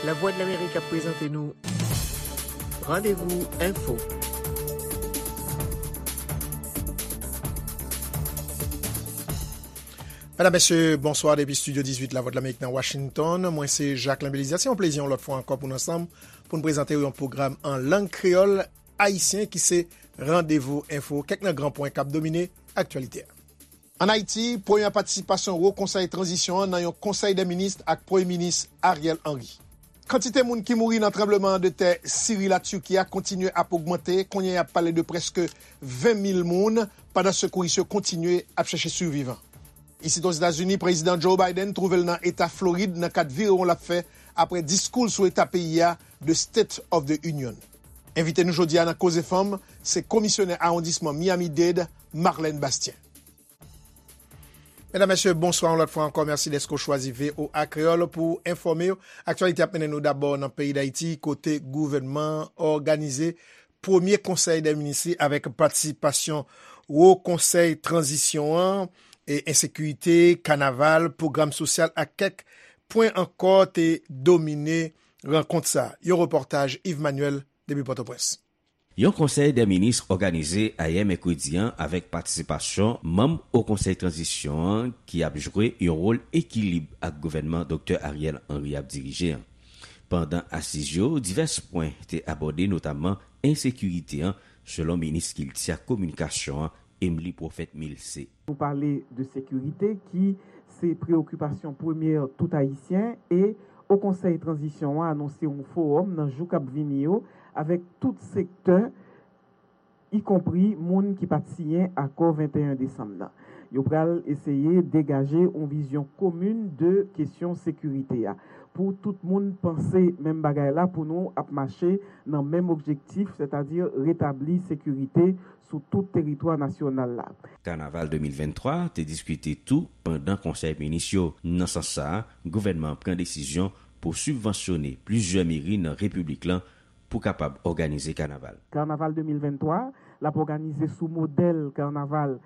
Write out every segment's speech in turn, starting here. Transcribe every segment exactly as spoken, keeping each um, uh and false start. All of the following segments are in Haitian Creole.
Lavwadlamerik ap prezante nou Randevou Enfo. Medam, mesye, bonswa depi Estidyo dizuit Lavwadlamerik nan Washington. Mwen se Jacquelin Belizaire. Se yon plezi yon lòt fwa ankò pou n ansanm pou n prezante w yon pwogram an lang kreyòl ayisyen ki se Randevou Enfo, kèk nan gran pwen k ap domine aktyalite a. Ann Ayiti, premyè patisipasyon Wo Konsèy Tranzisyon an nan yon Konsèy dè Minis ak Premye Minis Ariel Henry. Kantite moun ki mouri nan tranbleman de tè Siri Latiki a kontinye ap ogmante, kounye a y ap pale de prèske ven mil moun, pandan sekouris yo kontinye ap chèche sivivan. Isit Ozetazini, Prezidan Joe Biden twouve l nan eta Florid nan kad virewon l ap fè apre diskou l sou eta peyi a, The State of the Union. Envite nou jodi a nan Koze Fanm, se Komisyonè Awondisman Miami-Dade, Marlène Bastien. Medam, mesye, bonswa yon lòt fwa ankò. Mèsi dèske w chwazi V O A Kreyòl pou w enfòme w. Aktyalite ap mennen nou dabò nan peyi Dayiti, kote gouvènman an òganize premye konsèy dè minis li avèk patisipasyon Wo Konsèy Tranzisyon an, e ensekirite, kanaval, pwogram sosyal ak kèk pwen ankò te domine rankont sa a. Yon repòtaj Yves Manuel depi Pòtoprens. Yon konsèy dè minis òganize ayè mèkredi an avèk patisipasyon manm Wo Konsèy Tranzisyon an ki ap jwe yon wòl ekilib ak gouvènman Doktè Ariel Henry ap dirije an. Pandan asiz yo, divès pwen te abòde, notamman ensekirite an, selon minis Kilti ak Kominikasyon an, Emely Prophète Milcé. Nou pale de sekirite ki se preyokipasyon premyè tout Ayisyen e Wo Konsèy Tranzisyon an anonse yon fowòm nan jou k ap vini yo avèk tout sektè, ikonpri moun ki pa t siyen akò venteyen desanm nan. Yo pral eseye degaje yon vizyon komin de kesyon sekirite a, pou tout moun panse menm bagay la, pou nou ap mache nan menm objektif, sètadi retabli sekirite sou tout teritwa nasyonal la. Kanaval de mil venntwa te diskite tou pandan konsèy minis yo. Nan sans sa a, gouvènman an pran desizyon pou sibvansyone plizyè meri nan repiblik lan pou kapab òganize kanaval. Kanaval de mil venntwa, l ap òganize sou modèl kanaval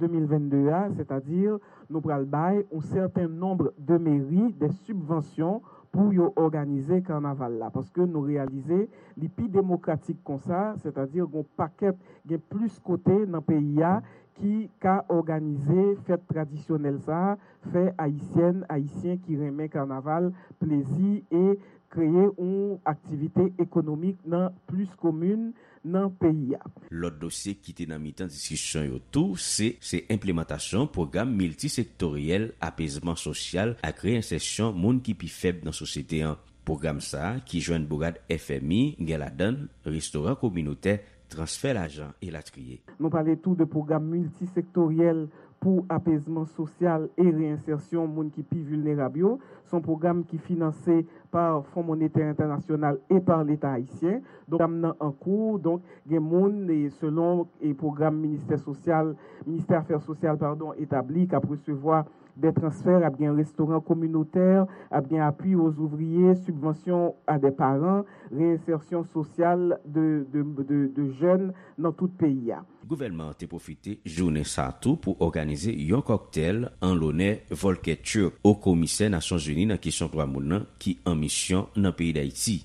de mil vennde a, sètadi nou pral bay yon sèten nonb de meri de sibvansyon pou yo òganize kanaval la, paske nou reyalize li pi demokratik konsa, sètadi gen pakèt, gen plis kote nan peyi a ki ka òganize fèt tradisyonèl sa a, fè Ayisyèn, Ayisyen ki renmen kanaval plezi e kreye yon aktivite ekonomik nan plis komin nan peyi a. Lòt dosye ki te nan mitan diskisyon yo tou, se, se enplimantasyon pwogram miltisektoryèl apezman sosyal ak reyensèsyon moun ki pi fèb nan sosyete an. Pwogram sa a, ki jwenn bourad F M I, gen ladan l restoran kominotè, transfè lajan, elatriye. Nou pale tou de pwogram miltisektoryèl pou apezman sosyal e reyensèsyon moun ki pi vilnerab yo. Se yon pwogram ki finanse pa Fon Monetè Entènasyonal e pa Leta ayisyen. Donk, pwogram nan an kou. Donk, gen moun, e selon, e pwogram ministè sosyal, ministè afè sosyal, padon, etabli, k ap resevwa de transfè, ap gen restoran kominotè, ap gen apui aux ouvriers, subvention à des parents, reyensèsyon sosyal de, de, de, de jèn nan tout peyi a. Gouvènman an te pwofite jounen sa a tou pou òganize yon kòktèl an lonè Volker Türk, Wo Komisè Nasyonzini nan kesyon dwa moun nan ki an misyon nan peyi Dayiti.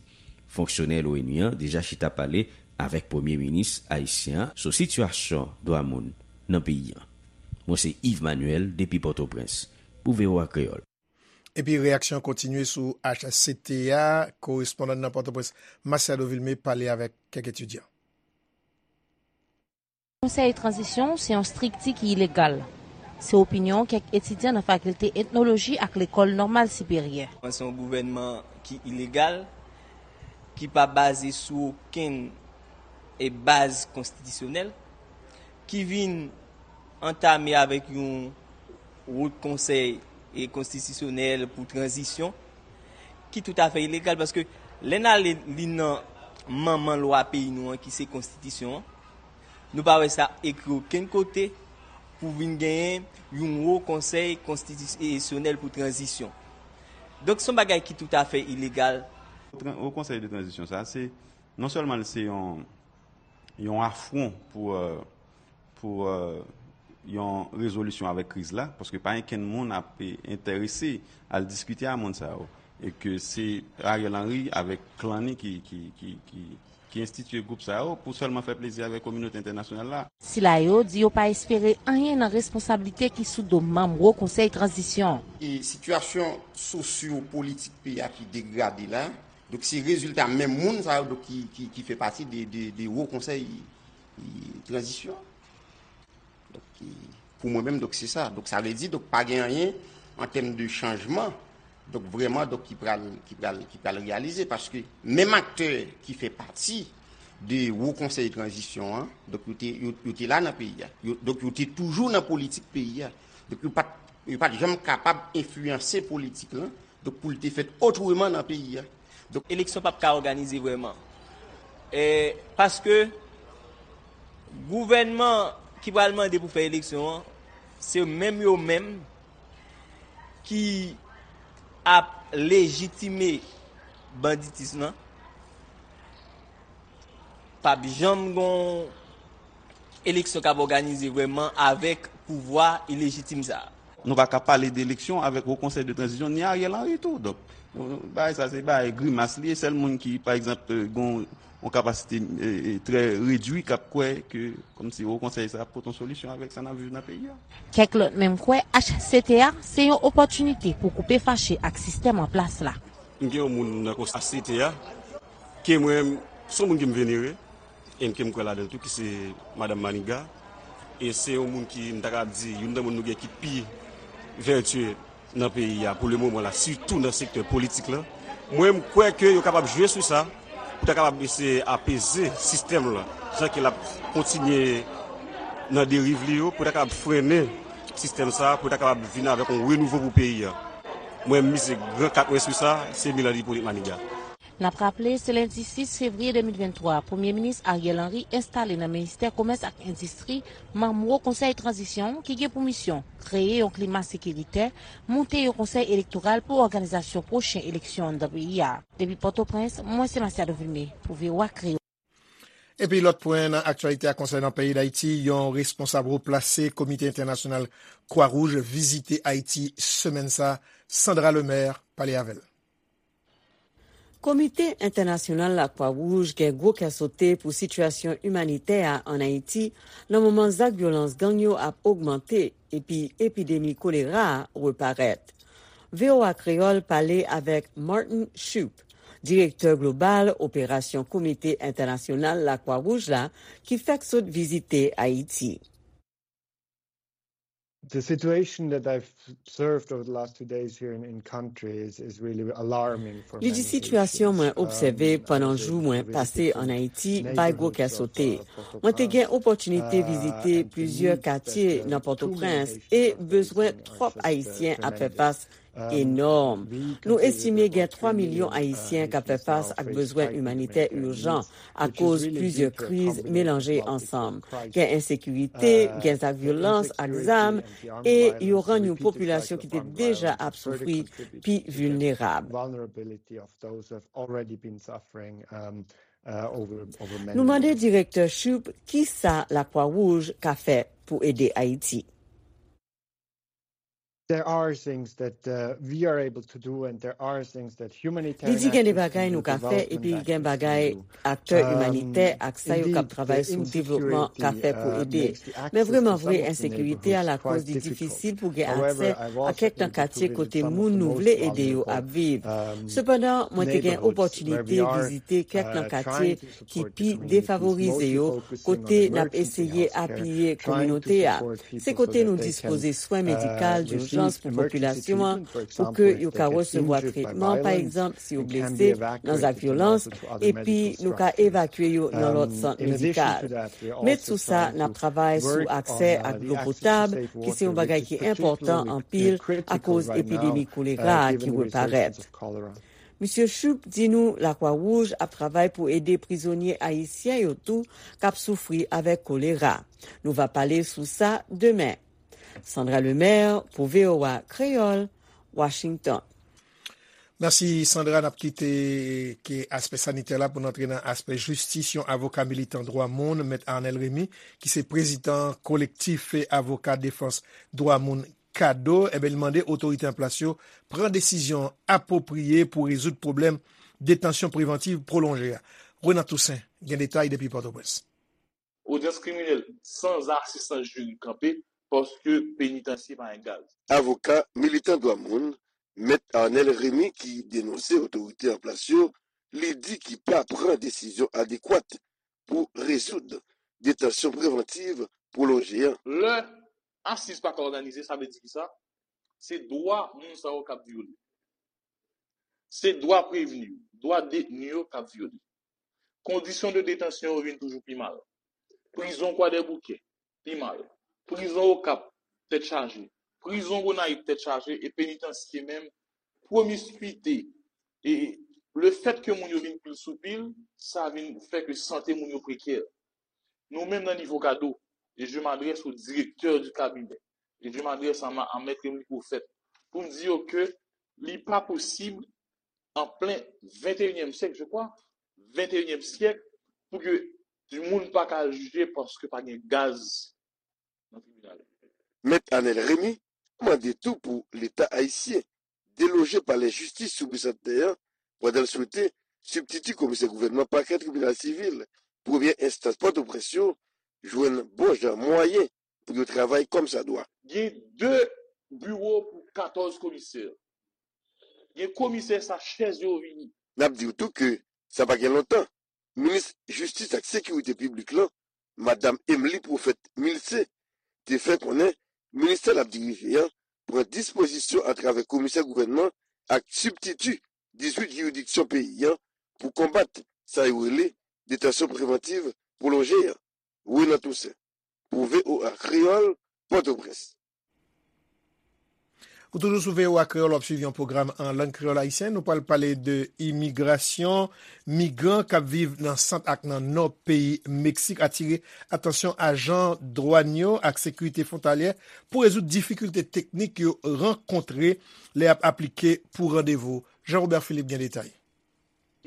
Fonksyonè L O N U an deja chita pale avèk premye minis ayisyen an sou sitiyasyon dwa moun nan peyi an. Mwen se Yves Manuel depi Pòtoprens pou V O A Kreyòl. Epi reyaksyon kontinye sou H C T A, korespondan nan Pòtoprens, Masiado Vilmé, pale avèk kèk etidyan. Konsèy Tranzisyon se yon estrikti ki ilegal. Se opinyon kèk etidyan nan Fakilte Etnoloji ak Lekòl Nòmal Siperyè. Se yon gouvènman ki ilegal, ki pa baze sou okenn, e, baz konstitisyonèl, ki vin antame avèk yon Wo Konsèy, e, Konstitisyonèl pou Tranzisyon, ki toutafè ilegal, paske lè n ale li nan manman lwa peyi nou an, ki se Konstitisyon an, nou pa wè sa ekri okenn kote pou vin genyen yon Wo Konsèy Konstitisyonèl pou Tranzisyon. Donk, se yon bagay ki toutafè ilegal. Tran-, Wo Konsèy de Tranzisyon sa, se, non sèlman l se yon, yon afwon pou, euh, pou, euh, yon rezolisyon avèk kriz la, paske pa okenn moun ap, eh, enterese al diskite a moun sa yo. E ke se Ariel Henry avèk klan ni ki, ki, ki, ki, ki enstitye gwoup sa yo pou sèlman fè plezi avèk kominote entènasyonal la. Sila yo di yo pa espere anyen nan responsablite ki sou do manm Wo Konsèy Tranzisyon. E sitiyasyon sosyo-politik peyi a ki degrade la, donk se rezilta menm moun sa yo donk ki, ki, ki fè pati de, de, de Wo Konsèy, e, Tranzisyon. Donk, e, pou mwen menm, donk, se sa. Donk, sa vle di, donk, pa gen anyen an tèm de chanjman, donk, vrèman, donk, ki pral, ki pral, ki pral reyalize, paske menm aktè ki fè pati de Wo Konsèy Tranzisyon an, donk, yo te, yo, yo te la nan peyi a. Yo, donk, yo te toujou nan politik peyi a. Donk, yo pa t, yo pa t janm kapab enfliyanse politik lan, donk, pou l te fèt otreman nan peyi a. Donk, eleksyon p ap ka òganize vrèman. E, paske gouvènman ki pral mande pou fè eleksyon an, se menm yo menm ki ap lejitime banditis lan. P ap janm gon eleksyon k ap òganize vrèman avèk pouvwa ilejitim sa a. Nou pa ka pale de eleksyon avèk Wo Konsèy de Tranzisyon, ni Ariel Henry tou. Donk, nou, nou, bagay sa, se bagay grimas li ye. Sèl moun ki, pa egzanp, e, gon yon kapasite, e, e, trè redwi, k ap kwè ke, kòmsi, Wo Konsèy sa ap pote yon solisyon avèk sa n ap viv nan peyi a. Kèk lòt menm kwè H C T A se yon opòtinite pou koupe fache ak sistèm an plas la. M gen yon moun nan konsèy H C T A, ke mwen, se yon moun ke m venere, e ke m kwè ladan l tou, ki se Madanm Maniga. E se yon moun ki, m ta kapab di, youn nan moun nou gen ki pi vètye nan peyi a pou le moman la, sitou nan sektè politik la. Mwen, m kwè ke yo kapab jwe sou sa, pou ta kapab eseye apeze sistèm la, jan ke l ap kontinye nan deriv li yo, pou ta kapab frennen sistèm sa, pou ta kapab vin avèk yon renouvo pou peyi a. Mwen, m mize gran kat mwen sou sa, se Milan Ipolit Maniga. N ap raple, se lendi sis fevriye de mil venntwa, Premye Minis Ariel Henry enstale nan Ministè Komès ak Endistri, manm Wo Konsèy Tranzisyon ki gen pou misyon kreye yon klima sekiritè, moute yon konsèy elektoral pou òganizasyon pwochen eleksyon anndan peyi a. Depi Pòtoprens, mwen se Masiado Vilmé pou V O A Kreyòl. Epi lòt pwen nan aktyalite a konsènan peyi Dayiti, yon responsab wo plase Komite Entènasyonal Kwa Wouj vizite Ayiti semèn sa, Sandra Lemaire pale avè l. Komite Entènasyonal Lakwa Wouj gen gwo kè sote pou sitiyasyon imanitè a ann Ayiti nan moman zak vyolans gang yo ap ogmante epi epidemi kolera a reparèt. V O A Kreyòl pale avèk Martin Shoup, direktè global operasyon Komite Entènasyonal Lakwa Wouj la, ki fèk sot vizite Ayiti. The situation that I've observed over the last two days here in, in country is, is really alarming for many issues. Li di, sitiyasyon mwen obsève pandan jou mwen pase ann Ayiti bay gwo kè sote. Mwen te gen opòtinite vizite plizyè katye nan Pòtoprens e bezwen twòp Ayisyen ap fè fas enòm. Nou estime gen twa milyon Ayisyen k ap fè fas ak bezwen imanitè ijan akoz plizyè kriz melanje ansanm. Gen ensekirite, gen zak vyolans ak zam, e yo rann yon popilasyon ki te deja ap soufri pi vilnerab. Nou mande direktè Shoup kisa Lakwa Wouj ka fè pou ede Ayiti. There are things that, uh, we are able to do and there are things that humanitarian actors can do, development actors can do. Li di gen de bagay nou ka fè epi gen bagay aktè imanitè ak sa yo k ap travay sou devlopman ka fè pou ede. Men vrèman vre, ensekirite a lakòz li difisil pou gen aksè a kèk nan katye kote moun nou vle ede yo ap viv. Sepandan, mwen te gen opòtinite vizite kèk nan katye ki pi defavorize yo, kote n ap eseye apiye kominote a. Se kote nou dispoze swen medikal dijans pou popilasyon an, pou ke yo ka resevwa tretman, pa egzanp, si yo blese nan zak vyolans, epi nou ka evakye yo nan lòt sant medikal. Met sou sa, n ap travay sou aksè ak dlo potab, ki se yon bagay ki enpòtan anpil akoz epidemi kolera a ki reparèt. Misye Shoup di nou Lakwa Wouj ap travay pou ede prizonye ayisyen yo tou k ap soufri avèk kolera. Nou va pale sou sa demen. Sandra Lemaire pou V O A Kreyòl, Washington. Mèsi, Sandra. N ap kite ke aspè sanitè la pou n antre nan aspè jistis. Yon avoka militan dwa moun, Mèt Arnel Remy, ki se prezidan kolektif avoka defans dwa moun kado, enben, li mande otorite an plas yo pran desizyon apwopriye pou rezoud pwoblèm detansyon prevantiv pwolonje a. Renan Toussaint gen detay depi Pòtoprens. Odyans kriminèl san asistans jiri kanpe paske penitansye pa gen gaz. Avoka militan dwa moun, Mèt Arnel Remy, ki denonse otorite an plas yo, li di ki pa pran desizyon adekwat pou rezoud detansyon prevantiv pwolonje an. Lè asiz pa ka òganize, sa vle di ki sa? Se dwa moun sa yo k ap vyole. Se dwa prevni yo, dwa detni yo k ap vyole. Kondisyon de detansyon yo vin toujou pi mal. Prizon Kwadèboukè, pi mal. Prizon Okap, tèt chaje. Prizon Gonayiv, tèt chaje. E penitansye menm, pwomiskwite. E lefèt ke moun yo vin pil sou pil, sa vin fè ke sante moun yo prekè. Nou menm nan nivo kado, e je m'adresse au directeur du cabinet, e je m'adresse à, à Maître Emily Prophète, pou m di yo ke li pa posib an plen venteyinyèm syèk, je crois, venteyinyèm syèk, pou ke moun pa ka al jije paske pa gen gaz nan tribinal. Mèt Arnel Remy mande tou pou Leta ayisyen deloje palè jistis sou Bisantnè an pandan l swete sibtiti komisè gouvènman pakè tribinal sivil premyè enstans Pòtoprens yo jwenn bon jan mwayen pou yo travay kòmsadwa. Gen de biwo pou katòz komisè. Gen komisè sa chèz yo vini. N ap di w tou ke sa pa gen lontan, minis jistis ak sekirite piblik lan, Madanm Emily Prophète Milcé, te fè konnen ministè l ap dirije an pran dispozisyon atravè komisè gouvènman ak sibtiti dizuit jiridiksyon peyi an pou konbat sa yo rele detansyon prevantiv pwolonje an. Renan Toussaint, pou V O A Kreyòl, Pòtoprens. Ou toujou sou V O A Kreyòl, w ap swiv yon pwogram an lang kreyòl ayisyen. Nou pral pale de imigrasyon. Migran k ap viv nan sant ak nan nò peyi Meksik atire atansyon ajan dwàn yo ak sekirite fwontalyè pou rezoud difikilte teknik yo rankontre lè y ap aplike pou randevou. Jean Robert Philippe gen detay.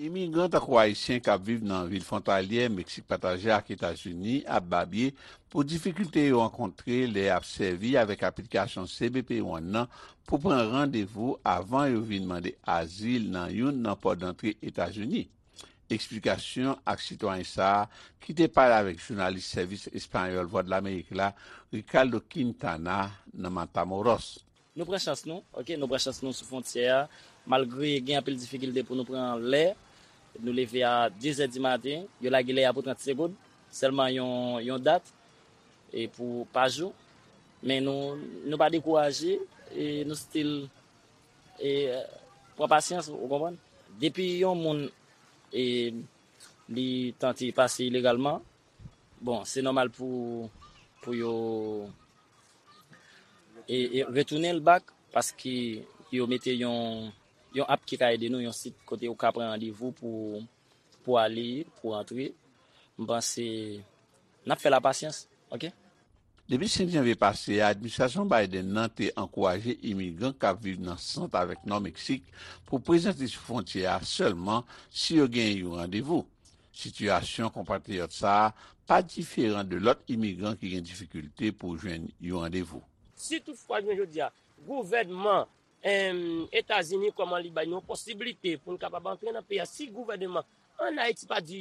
Imigran tankou Ayisyen k ap viv nan vil fwontalyè Meksik pataje ak Etazini ap babye pou difikilte yo rankontre lè y ap sèvi avèk aplikasyon C B P One nan pou pran randevou avan yo vin mande azil nan youn nan pò dantre Etazini. Eksplikasyon ak sitwayen sa a ki te pale avèk jounalis Sèvis Espayòl Vwadlamerik la, Ricardo Quintana, nan Matamoros. Nou pran chans nou, ok, nou pran chans nou sou fwontyè a, malgre gen anpil difikilte pou nou pran lè, nou leve a de zè di maten, yo lage lè a pou trant segonn, sèlman yon, yon dat, e pou pa jou, men nou, nou pa dekouraje, e nou still, e, pran pasyans, ou konprann? Depi yon moun, e, li tante pase ilegalman, bon, se nòmal pou, pou yo e, e retounen l back, paske yo mete yon, yon app ki ka ede nou, yon sit kote ou ka pran randevou pou, pou ale, pou antre. M panse n ap fè la pasyans, ok? Depi senk janvye pase a, administrasyon Biden nan te ankouraje imigran k ap viv nan sant avèk nò Meksik pou prezante sou fwontyè a sèlman si yo genyen yon randevou. Sitiyasyon konpatriyòt sa a pa diferan de lòt imigran ki gen difikilte pou jwenn yon randevou. Si toutfwa, jounen jodi a, gouvènman Etazini, kòman li bay nou posiblite pou n kapab antre nan peyi a, si gouvènman ann Ayiti pa di,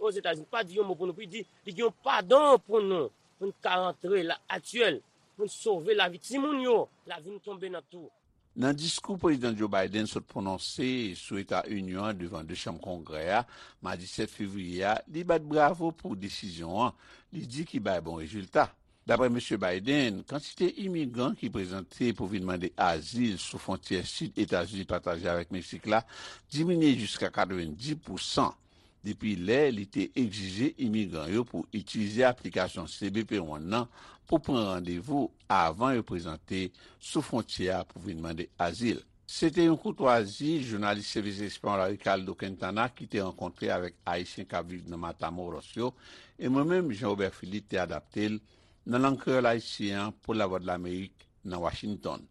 Ozetazini pa di yon mo pou nou, pou di li gen yon padon pou nou, pou n ka antre la aktyèl, pou n sove lavi timoun yo, lavi n tonbe nan twou. Nan diskou Prezidan Joe Biden sot pwononse sou Eta Inyon an devan de chanm Kongrè a, madi sèt fevriye a, li bat bravo pou desizyon an, li di ki bay bon rezilta. Dapre Mesye Biden, kantite imigran ki prezante pou vin mande azil sou fwontyè sid Etazini pataje avèk Meksik la diminye jiska katrevenndis pousan depi lè li te egzije imigran yo pou itilize aplikasyon C B P One nan pou pran randevou avan yo prezante sou fwontyè a pou vin mande azil. Se te yon koutwazi jounalis Sèvis Espayòl la Ricardo Quintana ki te rankontre avèk Ayisyen k ap viv nan Matamoros yo, e mwen menm, Jean Robert Philippe, te adapte l nan lang kreyòl ayisyen an pou Lavwadlamerik nan Washington.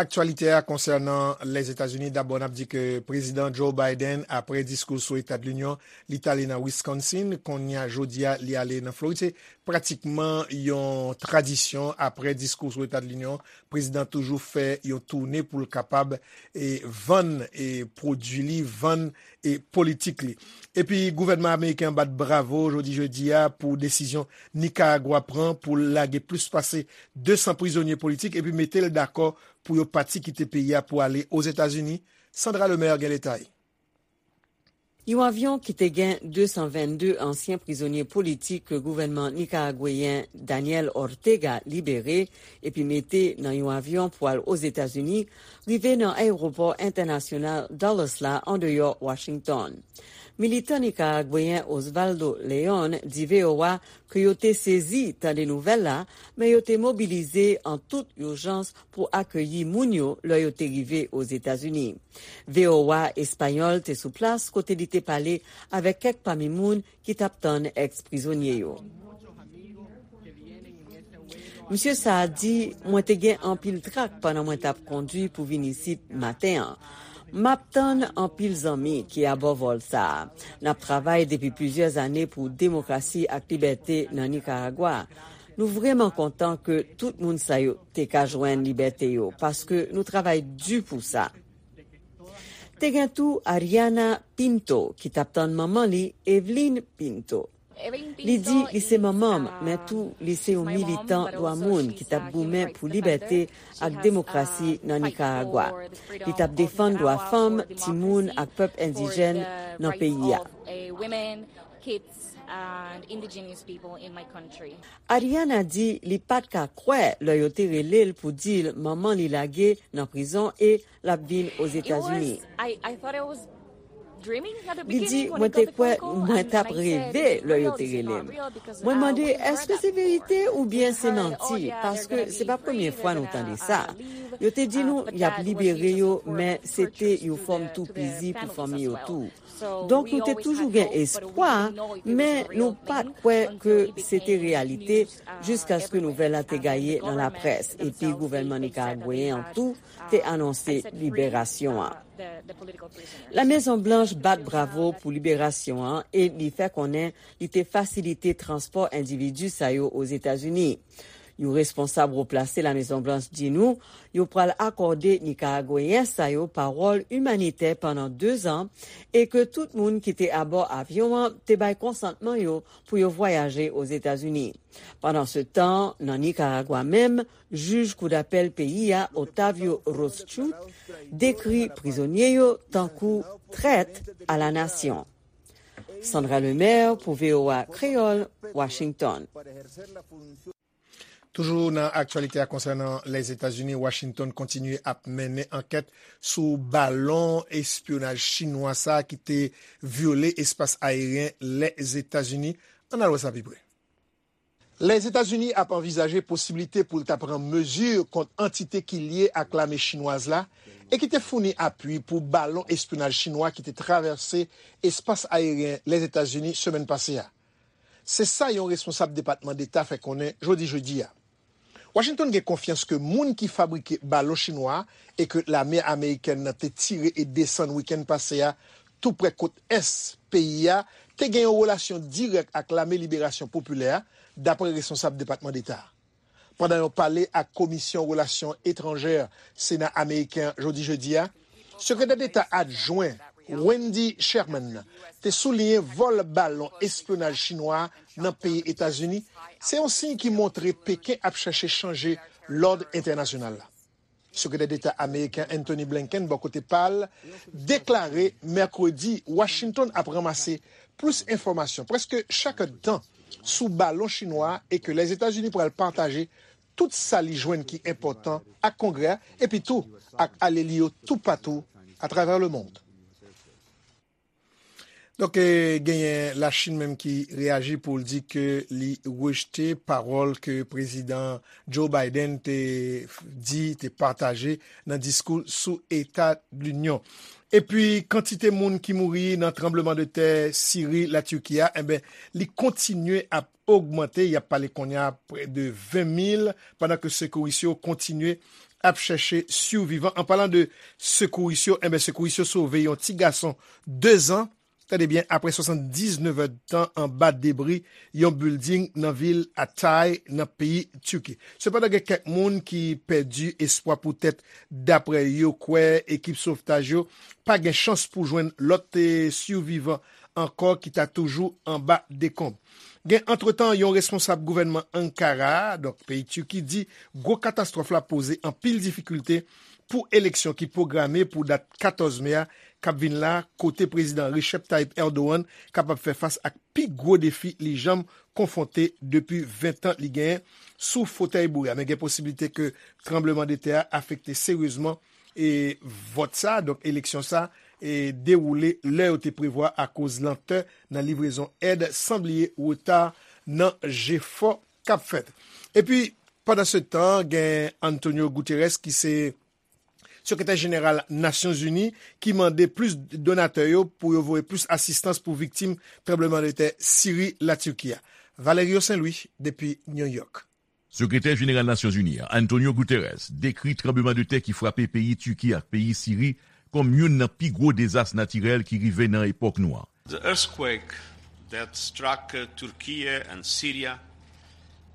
Aktyalite a konsènan Lèzetazini, dabò n ap di ke Prezidan Joe Biden, apre diskou sou Eta de Linyon, li t ale nan Wisconsin, kounye a, jodi a, li ale nan Florid. Se pratikman yon tradisyon, apre diskou sou Eta de Linyon, prezidan toujou fè yon toune pou l kapab, e, vann, e, pwodui li, vann, e, politik li. Epi gouvènman ameriken an bat bravo jodi jedi a pou desizyon Nikaragwa pran pou l lage plis pase de san prizonye politik epi mete l dakò pou yo pati kite peyi a pou ale Ozetazini. Sandra Lemaire gen detay. Yon avyon ki te gen de san vennde ansyen prizonye politik ke gouvènman nikaragweyen Daniel Ortega libere epi mete nan yon avyon pou al Ozetazini rive nan ayewopò entènasyonal Dulles la andeyò Washington. Militan nikaragweyen Osvaldo Leon di V O A ke yo te sezi tande nouvèl la, men yo te mobilize an tout ijans pou akeyi moun yo lè yo te rive Ozetazini. V O A Espayòl te sou plas kote li te pale avèk kèk pami moun ki t ap tann èks-prizonye yo. Misye sa a di, mwen te gen anpil trak pandan mwen t ap kondui pou vin isit maten an. M ap tann anpil zanmi ki abò vòl sa a. N ap travay depi plizyè zane pou demokrasi ak libète nan Nikaragwa. Nou vrèman kontan ke tout moun sa yo te ka jwenn libète yo, paske nou travay di pou sa. Te gen tou Ariana Pinto, ki t ap tann manman li, Evelyn Pinto. Li di li se manman m, men tou li se yon militan dwa moun ki t ap goumen pou libète ak demokrasi nan Nikaragwa. Li t ap defann dwa fanm, timoun ak pèp endijèn nan peyi a. Ariana di li pa t ka kwè lè yo te rele l pou di l manman li lage nan prizon e l ap vin Ozetazini. Li di, mwen te kwè mwen t ap reve lè yo te rele m. Mwen mande, èske se verite oubyen se manti? Paske se pa premye fwa nou tande sa. Yo te di nou y ap libere yo, men se te yon fòm toupizi pou fanmi yo tou. Donk, nou te toujou gen espwa, men nou pa t kwè ke se te reyalite jiskaske nouvèl la te gaye nan laprès, epi gouvènman nikaragweyen an tou te anonse liberasyon an. La Mezon Blanch bat bravo pou liberasyon an e li fè konnen li te fasilite transpò endividi sa yo Ozetazini. Yon responsab wo plase La Mezon Blanch di nou yo pral akòde Nikaragweyen sa yo pawòl imanitè pandan de zan e ke tout moun ki te abò avyon an te bay konsantman yo pou yo vwayaje Ozetazini. Pandansetan, nan Nikaragwa menm, jij koudapèl peyi a, Octavio Rothschild, dekri prizonye yo tankou trèt a la nasyon. Sandra Lemaire pou V O A Kreyòl, Washington. Toujou nan aktyalite a konsènan Lèzetazini, Washington kontinye ap mennen ankèt sou balon espyonaj chinwa sa a ki te vyole espas ayeryen Lèzetazini. Ann al wè sa pi pre. Lèzetazini ap anvizaje posiblite pou l ta pran mezi kont antite ki lye ak lame chinwaz la e ki te founi apui pou balon espyonaj chinwa ki te travèse espas ayeryen Lèzetazini semèn pase a. Se sa yon responsab Depatman Deta fè konnen jodi jedi a. Washington gen konfyans ke moun ki fabrike balon chinwa a e ke lame amerikèn nan te tire e desann wikenn pase a toupre kot ès peyi a, te gen yon relasyon dirèk ak Lame Liberasyon Popilè a, dapre responsab Depatman Deta a. Pandan yon pale ak Komisyon Relasyon Etranjè Sena ameriken an jodi jedi a, Sekretè Deta adjwen Wendy Sherman te souliyen vòl balon espyonaj chinwa a nan peyi Etazini se yon siy ki montre Peken ap chèche chanje lòd entènasyonal la. Sekretè Deta ameriken Antony Blinken, bò kote pa l, deklare mèkredi Washington ap ranmase plis enfòmasyon, prèske chak èdtan, sou balon chinwa a e ke Lèzetazini pral pataje tout sa li jwenn ki enpòtan ak Kongrè a, epi tou ak alye li yo toupatou atravè lemonn. Donk, eh, genyen Lachin menm ki reyaji pou l di ke li rejte pawòl ke Prezidan Joe Biden te f-, di, te pataje nan diskou sou Eta Linyon. Epi, kantite moun ki mouri nan tranbleman de tè Siri, Latiki a, enben, li kontinye ap ogmante. Y ap pale kounye a prè de ven mil, pandan ke sekouris yo kontinye ap chèche sivivan. An palan de sekouris yo, enben, sekouris yo sove yon ti gason de zan, tande byen, apre swasanndiznèf èdtan anba debri yon bilding nan vil Hatay, nan peyi Tiki. Sepandan, gen kèk moun ki pèdi espwa poutèt, dapre yo kwè, ekip sovtaj yo pa gen chans pou jwenn lòt, eh, sivivan ankò ki ta toujou anba dekonb. Gen antretan yon responsab gouvènman Ankara, donk peyi Tiki, di gwo katastwòf la poze anpil difikilte pou eleksyon ki pwograme pou dat katòz me a k ap vin la, kote Prezidan Recep Tayyip Erdogan kapab fè fas ak pi gwo defi li janm konfwonte depi ven tan li genyen sou fotèy boure a. Men gen posiblite ke tranbleman de tè a afekte seryezman e vòt sa, donk eleksyon sa, e dewoule lè yo te prevwa akoz lantè nan livrezon èd, san bliye reta nan jefò k ap fèt. Epi, pandan se tan, gen Antonio Guterres ki se sekretè jeneral Nasyonzini ki mande plis donatè yo pou yo voye plis asistans pou viktim tranbleman de tè Siri, Latiki a. Valerio Saint Louis, depi New York. Sekretè jeneral Nasyonzini an, Antonio Guterres, dekri tranbleman de tè ki frape peyi Tiki ak peyi Siri kòm youn nan pi gwo dezas natirèl ki rive nan epòk nou an. The earthquake that struck, uh, Turkey and Syria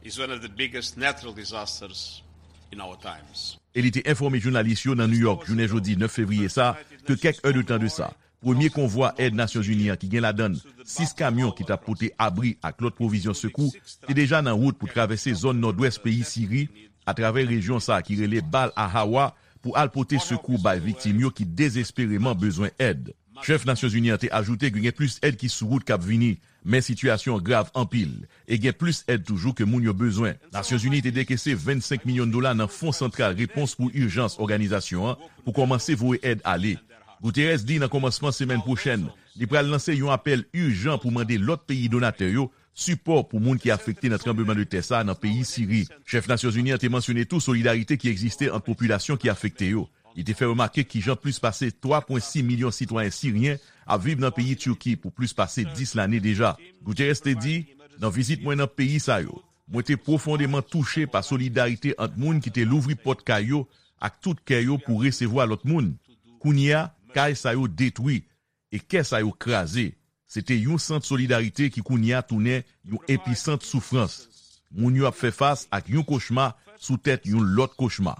is one of the biggest natural disasters in our times. E li te enfòme jounalis yo nan New York, jounen jodi nèf fevriye sa, ke kèk èdtan de sa, premye konvwa èd Nasyonzini an ki gen ladann sis kamyon ki t ap pote abri ak lòt pwovizyon sekou te deja nan wout pou travèse zòn nòdwès peyi Siri, atravè rejyon sa a ki rele Bal Ahawa, pou al pote sekou bay viktim yo ki dezespereman bezwen èd. Chèf Nasyonzini an te ajoute ke gen plis èd ki sou wout k ap vini, men sitiyasyon an grav anpil, e gen plis èd toujou ke moun yo bezwen. Nasyonzini te dekese vennsenk milyon dola nan Fon Santral Repons pou Ijans òganizasyon an pou kòmanse voye èd ale. Guterres di nan kòmansman semèn pwochèn, li pral lanse yon apèl ijan pou mande lòt peyi donatè yo sipò pou moun ki afekte nan tranbleman de tè sa a nan peyi Siri. Chèf Nasyonzini an te mansyone tou solidarite ki egziste ant popilasyon ki afekte yo. Li te fè remake kijan plis pase twa pwen sis milyon sitwayen siryen ap viv nan peyi Tiki pou plis pase dis lane deja. Guterres te di, nan vizit mwen nan peyi sa yo, mwen te pwofondeman touche pa solidarite ant moun ki te louvri pòt kay yo ak tout kè yo pou resevwa lòt moun. Kounye a, kay sa yo detwi e kè sa yo kraze. Se te yon sant solidarite ki kounye a tounen yon episant soufrans. Moun yo ap fè fas ak yon kochma sou tèt yon lòt kochma.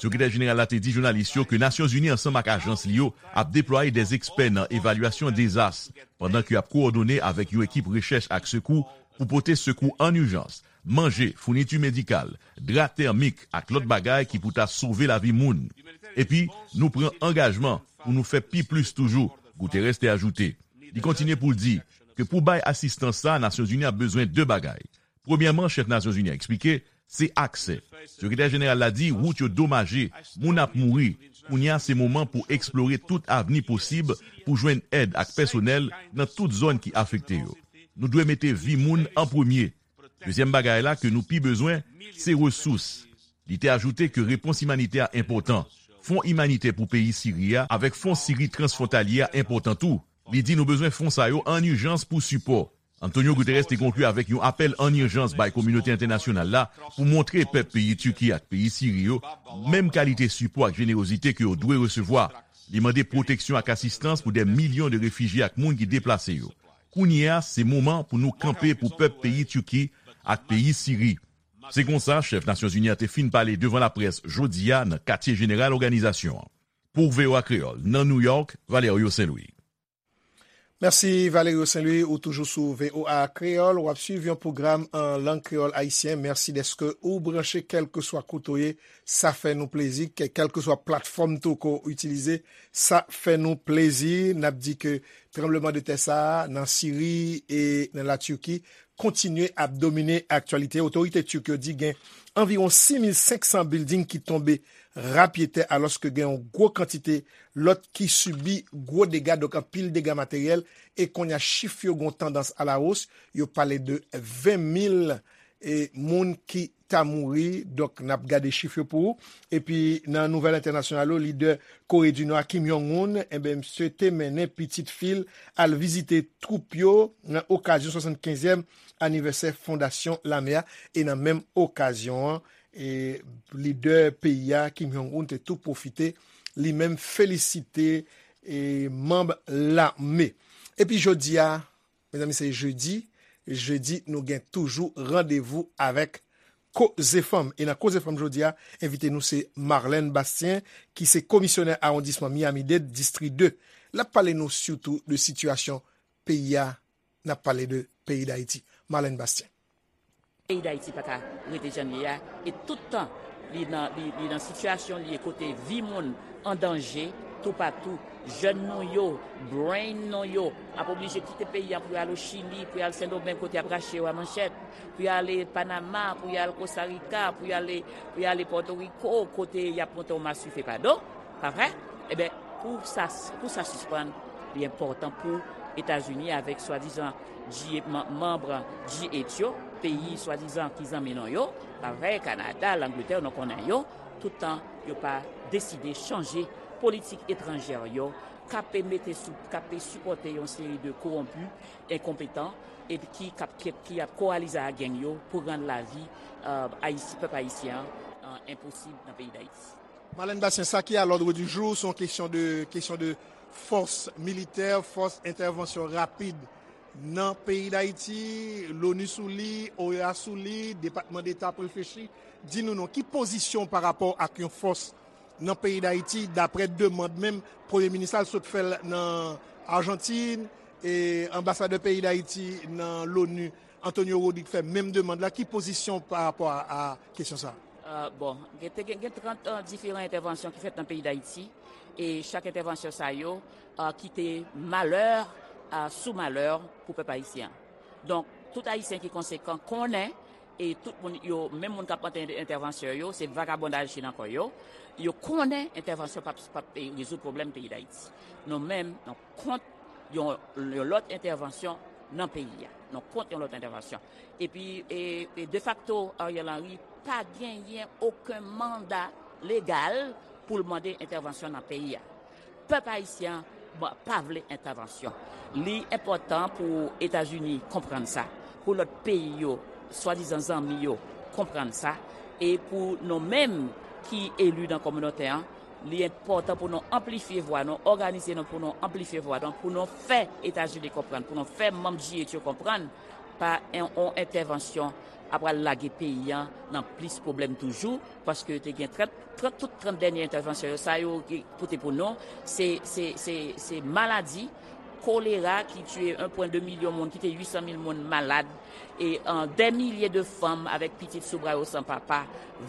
Sekretè jeneral la te di jounalis yo ke Nasyonzini ansanm ak ajans li yo ap deplwaye dè ekspè nan evalyasyon dezas, pandan ke y ap kowòdone avèk yon ekip rechèch ak sekou pou pote sekou an ijans, manje, founiti medikal, dra tèmik ak lòt bagay ki pou ta sove lavi moun. Epi, nou pran angajman pou nou fè pi plis toujou, Guterres te ajoute. Li kontinye pou l di ke pou bay asistans sa a, Nasyonzini ap bezwen de bagay. Premyèman, chèf Nasyonzini an eksplike, se aksè. Sekretè jeneral la di wout yo domaje, moun ap mouri. Kounye a, se moman pou eksplore tout avni posib pou jwenn èd ak pèsonèl nan tout zòn ki afekte yo. Nou dwe mete vi moun an premye. Dezyèm bagay la ke nou pi bezwen, se resous. Li te ajoute ke repons imanitè a enpòtan. Fon imanitè pou peyi Siri a avèk fon Siri transfwontalye a enpòtan tou. Li di nou bezwen fon sa yo an ijans pou sipò. Antonio Guterres te konkli avèk yon apèl an ijans bay kominote entènasyonal la pou montre pèp peyi Tiki ak peyi Siri yo menm kalite sipò ak jenerozite ke yo dwe resevwa. Li mande pwoteksyon ak asistans pou dè milyon de refijye ak moun ki deplase yo. Kounye a, se moman pou nou kanpe pou pèp peyi Tiki ak peyi Siri. Se konsa, chèf Nasyonzini an te fin pale devan laprès jodi a nan katye jeneral òganizasyon an. Pou V O A Kreyòl, nan New York, Valerio Saint Louis. Mèsi, Valerio Saint Louis, ou toujou sou V O A Kreyòl, w ap swiv yon pwogram an lang kreyòl ayisyen. Mèsi dèske ou branche, kèlkeswa kote w ye, sa fè nou plezi, kè-, kèlkeswa platfòm tou ke w itilize, sa fè nou plezi. N ap di ke tranbleman de tè sa a nan Siri e nan Latiki kontinye ap domine aktyalite. Otorite Turk yo di gen anviwon sis mil senk san bilding ki tonbe rapyetè, alòske gen yon gwo kantite lòt ki sibi gwo dega, donk anpil dega materyèl, e kounye a chif yo gon tandans alawos, yo pale de ven mil e moun ki ta mouri. Donk, n ap gade chif yo pou ou. Epi, nan nouvèl entènasyonal yo, lidè Kore di Nò a, Kim Jong-un, enben, misye te mennen pitit fi l al vizite twoup yo nan okazyon swasannkenzyèm anivèsè fondasyon lame a. E nan menm okazyon an, e lidè peyi a, Kim Jong-un, te tou pwofite li menm felisite e manm lame. Epi jodi a, mezanmi, se jedi. Jedi, nou gen toujou randevou avèk Koze Fanm. E nan Koze Fanm jodi a, envite nou se Marlène Bastien, ki se komisyonè awondisman Miami-Dade, distri de. L ap pale nou sitou de sitiyasyon peyi a, n ap pale de peyi Dayiti. Marlène Bastien. Peyi Dayiti pa ka rete jan l ye a, e tout tan li nan, li, li nan sitiyasyon li ye kote vi moun an danje toupatou. Jèn nou yo, brain nou yo ap oblije kite peyi a pou y al o Chili, pou y al Sendomeng kote y ap rache yo a manchèt, pou y ale Panama, pou y al Kostarika, pou y ale, pou y ale Pòtoriko kote y ap monte yon maswife pa do, pa vre? Ebyen, pou sa, pou sa sispann, li enpòtan pou Etazini avèk swadizan G, manm G eight yo, peyi swadizan ki zanmi nou yo, pa vre, Kanada, Langletè, nou konnen yo, tout tan yo pa deside chanje politik etranjè yo, k ap mete sou, k ap sipòte yon seri de kowonpi, enkonpetan, epi ki, k ap, ki, ki ap kowalize ak gang yo pou rann lavi, euh, Ayisi-, pèp ayisyen an, euh, enposib nan peyi Dayiti. Marlène Bastien, sa ki a l'ordre du jour, se yon kesyon de, kesyon de fòs militè, fòs entèvansyon rapid nan peyi Dayiti, l'ONU sou li, OEA sou li, Depatman Deta ap reflechi. Di nou non, ki pozisyon w pa rapò ak yon fòs nan peyi Dayiti, daprè demann menm Premye Minis la, l sot fè l nan Ajantin, e anbasadè peyi Dayiti nan l'ONU, Antonio Rodrigue, fè menm demann la. Ki pozisyon w pa rapò a, a kesyon sa a? Euh, bon, gen, te gen, gen trant, euh, diferan entèvansyon ki fèt nan peyi Dayiti, e chak entèvansyon sa yo, euh, kite malè, euh, sou malè pou pèp ayisyen an. Donk, tout Ayisyen ki konsekan konnen, e tout moun yo, menm moun k ap mande entèvansyon yo, se vagabondaj ki nan kò yo. Yo konnen entèvansyon p ap, p ap, eh, rezoud pwoblèm peyi Dayiti. Nou menm, nou kont yon, yon lòt entèvansyon nan peyi a. Nou kont yon lòt entèvansyon. Epi, e, e defakto, Ariel Henry pa genyen okenn manda legal pou l mande entèvansyon nan peyi a. Pèp ayisyen an pa vle entèvansyon. Li enpòtan pou Etazini konprann sa, pou lòt peyi yo, swadizan zanmi yo, konprann sa, e pou nou menm ki eli nan kominote an, li enpòtan pou nou anplifye vwa nou, òganize nou pou nou anplifye vwa nou, pou nou fè Etazini konprann, pou nou fè manm G eight yo konprann, pa yon, yon entèvansyon ap pral lage peyi an nan plis pwoblèm toujou, paske te gen trant, trant, tout trant dènye entèvansyon yo, sa yo ki pote pou nou, se, se, se, se maladi kolera ki tiye yen pwen de milyon moun, kite uit san mil moun malad, e, euh, dè milye de fanm avèk pitit sou bra yo san papa,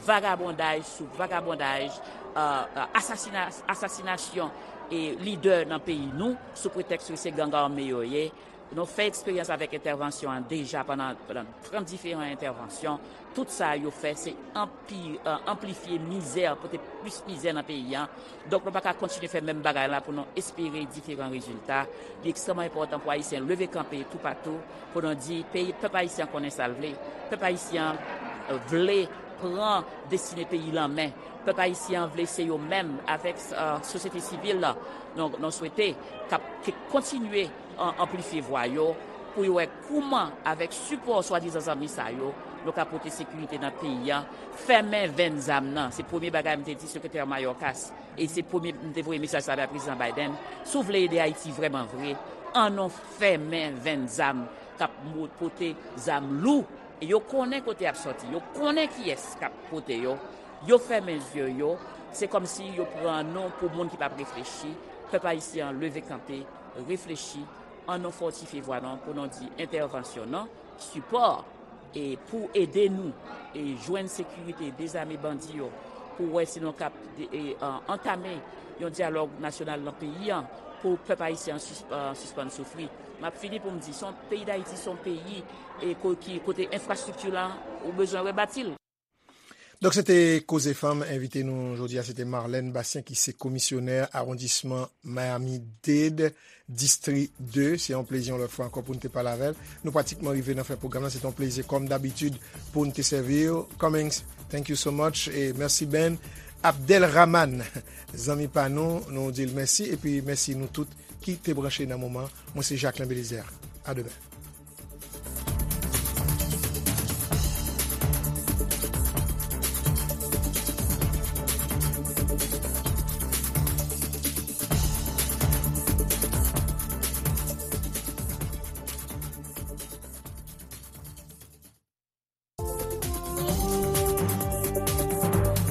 vagabondaj sou vagabondaj, euh, euh, asasina-, asasinasyon e lidè nan peyi nou sou pretèks ke se gang ame yo ye. Nou fè eksperyans avèk entèvansyon an deja pandan, pandan trant diferan entèvansyon. Tout sa yo fè, se anpi-, euh, anplifye mizè, pote plis mizè nan peyi an. Donk, nou pa ka kontinye fè menm bagay la pou nou espere diferan rezilta. Li ekstrèmman enpòtan pou Ayisyen leve kanpe toupatou, pou nou di, peyi, pèp ayisyen an konnen sa l vle. Pèp ayisyen an, euh, vle pran destine peyi l an men. Pèp ayisyen an vle se yo menm, avèk, euh, sosyete sivil la, nou, nou swete k ap, ke kontinye an-, anplifye vwa yo, pou yo wè kouman, avèk sipò swadizan zanmi sa yo, nou ka pote sekirite nan peyi an, fèmen venn zam nan. Se premye bagay m te di Sekretè Mayorkas, e se premye m te voye mesaj sa bay Prezidan Biden. Si w vle ede Ayiti vrèman vre, ann nou fèmen venn zam k ap mo-, pote zam lou. E yo konnen kote y ap sòti, yo konnen kiyès k ap pote yo. Yo fèmen zye yo, se kòmsi yo pran nou pou moun ki p ap reflechi. Pèp ayisyen an leve kanpe, reflechi, ann nou fòtifye vwa nou pou nou di entèvansyon non, sipò, e pou ede nou, e jwenn sekirite, dezame bandi yo, Pou wè si nou kab antame yon dyalòg nasyonal nan peyi an pou pèp ayisyen an sispann soufri. M ap fini pou m di, peyi Dayiti se yon peyi kote enfrastrikti la ou bezwen rebati l. Donk se te Koze Fanm. Envite nou jodi a se te Marlène Bastien ki se komisyonè awondisman Miami-Dade, distri de. Se yon plezi yon lòt fwa ankò pou n te pale avè l. Nou pratikman rive nan fen pwogram nan. Se te yon plezi kòm dabitid pou n te sèvi w. Cummings, thank you so much. E mèsi Ben. Abdelrahman, zanmi pa nou, nou di l mèsi. Epi mèsi nou tout ki te branche nan moman. Mwen se Jacquelin Belizaire. A demen.